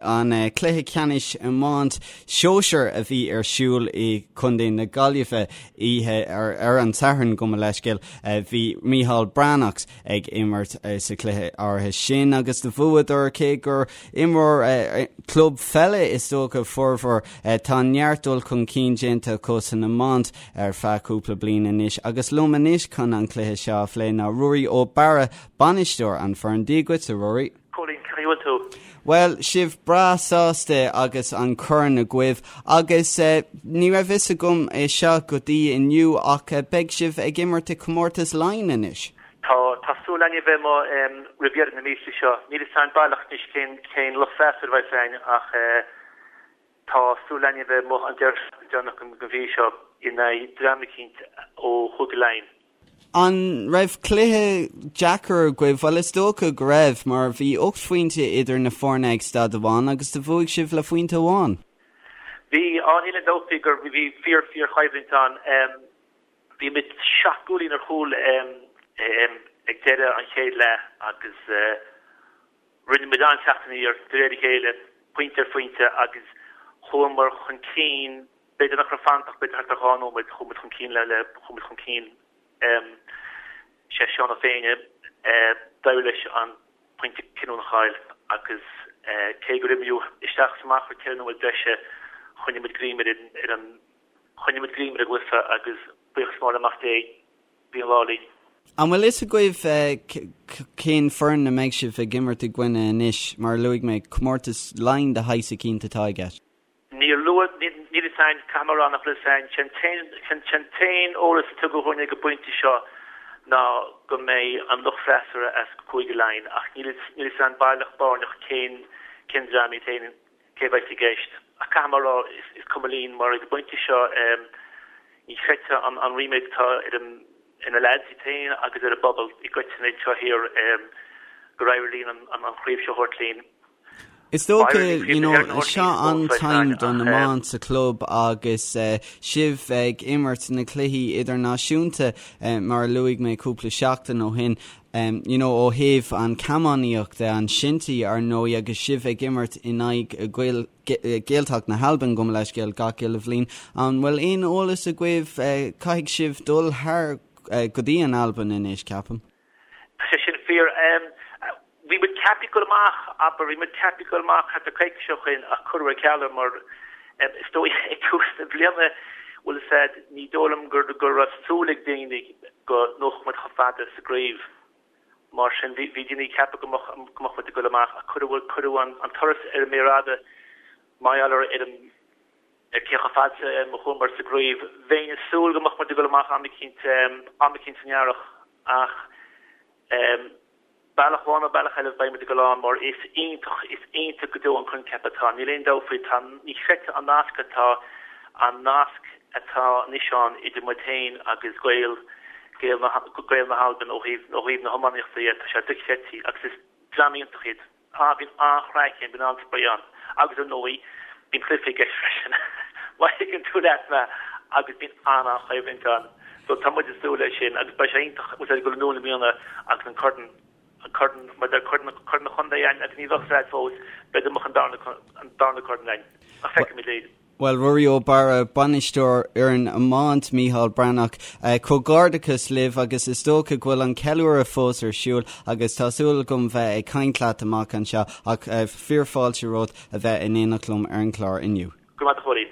An cluiche ceannais iomáint sóisear a bhí ar siúl i gContae na Gaillimhe oíche ar an Satharn, gabh mo leithscéal, bhí Micheál Breathnach ag imirt sa chluiche áirithe sin agus do bhuadar cé gur imreoir club pheile is dócha formhór. Tá neart dul chun cinn déanta acu san iomáint ar feadh cúpla bliain anois agus liom anois chun an cluiche seo a phlé ná Ruairí Ó Barra, bainisteoir an foireann. Dia dhuit, a Ruairí. Cóilín, cén chaoi a bhfuil tú? Bhuel, sibh breá sásta agus an corn agaibh agus ní raibh fhios agam é seo go dtí inniu ach beidh sibh ag imirt i Comórtas Laighean anois. Tá, tá súil againn a bheith amuigh roimh dheireadh na míosa seo. Níl fhios againn baileach anois cén, cén lucht freastail a bheidh againn ach tá súil againn a bheith amuigh an deireadh seachtaine deireanach den mhí seo in aghaidh dream eicínt ó Chúige Laighean. An raibh cluiche deacair agaibh? Bhuel, is dócha go raibh, mar bhí 8 phointe idir na foirne ag staid amháin agus do bhuaigh sibh le phointe amháin. Bhí, á níl aon dabht faoi gur bhí fíor fíor choimhlint ann. Bhí muid seacht gcúilín ar chúl ag deireadh an chéad leath agus rinne muid an-teacht aniar de réir a chéile, pointe ar phointe agus chuamar chun cinn B'fhéidir nach raibh fanta ach b'fhéidir thart ar 2 nóiméad chuaigh muid chun cinn le le chuaigh muid chun cinn sé Seán Ó Féinne d'éirigh leis an pointe cinniúnach a fháil agus cé gur imríodh isteach is amach ar 4 nóiméad breise choinnigh muid greim ar an ar an choinnigh muid greim ar an gcluiche agus buíochas mór le Mac Dé bhí an lá linn. An bhfuil fhios agaibh cén foireann a mbeidh sibh ag imirt i gcoinne anois? Mar a luaigh mé, comórtas Laighean de shaghas eicínt atá i gceist. Níor luadh, níl fhios a'inn, caithfidh mé a rá nach bhfuil fhios a'inn. Sé'n t-aon, sé'n t-aon eolas a tugadh dhúinn ag an bpointe seo ná go mbeidh an lucht freasúra as Cúige Laighean ach níl fhios, níl fhios a'inn baileach báirneach cén, cén dream iad féin, cé a bheas i gceist. Ach caithfidh mé a rá, is, is cuma linn mar ag an bpointe seo ní chreidfeá an, an ríméad atá ar an, ar na leaids iad féin agus ar an bpobal i gcoitinne anseo thiar gur éirigh linn an, an, an chraobh seo a thabhairt linn. Is dócha, you know, seo an time don iomáint sa chlub agus sibh ag imirt na cluichí idirnáisiúnta mar a luaigh mé cúpla seachtain ó shin, you know, ó thaobh an chamógaíocht de, an shinty ar ndóigh agus sibh ag imirt in aghaidh Gael, Gaeltacht na hAlban gabh mo leithscéal gach uile bhliain. An bhfuil aon eolas agaibh, caithfidh sibh dul thar go dtí an Albain anois, ceapaim? Tá sé sin fíor. Bhí muid ceaptha ag dul amach, abair, bhí muid ceaptha ag dul amach thart ar coicís ó shoin ach cuireadh ar ceal é mar is dóigh ag tús na bliana, bhfuil fhios a'd, ní dóigh liom go go raibh súil ag daoine go ngabhfadh muid chomh fada sa gcraobh. Mar sin bhí bhí daoine ag ceapadh go mbeadh go mbeadh muid ag dul amach ach cuireadh cuireadh an an turas ar an méar fhada mar gheall ar ar an Ar cé chomh fada a chuamar sa gcraobh, bheinn ag súil go mbeadh muid ag dul amach am eicínt, am eicínt san earrach ach bealach amháin nó bealach eile beidh muid ag dul ann mar is iontach, is iontach go deo an coincheap atá, níl aon dabht faoi, tá, ní chreidfeá an nasc atá, an nasc atá anois ann idir muid féin agus Gaeil, Gaeil na, Gaeil na hAlban ó thaobh, ó thaobh na hiománaíochta dhe, tá sé dochreidte agus is dream iontach iad. Ah, bíonn an-chraic ann, bíonn an-spraoi ann. Agus ar ndóigh, bíonn cluiche i gceist freisin, má thuigeann tú leat mé, agus bíonn an-an-choimhlint ann. So tá muid ag súil leis sin agus beidh sé iontach, bhfuil a fhios a'd, ag dul anonn i mbliana agus an corn, an corn, mar deir corn, corn an chontae a'inn agus ní bheadh fhios a'd fós, b'fhéidir go mbeadh an darna, an darna corn a'inn. Ach feicfimid é. Bhuel, Ruairí Ó Barra, bainisteoir fhoireann iomáint Micheál Breathnach, comhghairdeachas libh agus is dócha go bhfuil an ceiliúradh fós ar siúl agus tá súil agam bheith ag caint leat amach anseo ach fíor fáilte romhat a bheith in éineacht liom ar an gclár inniu. Go raibh maith agat a Chóilín.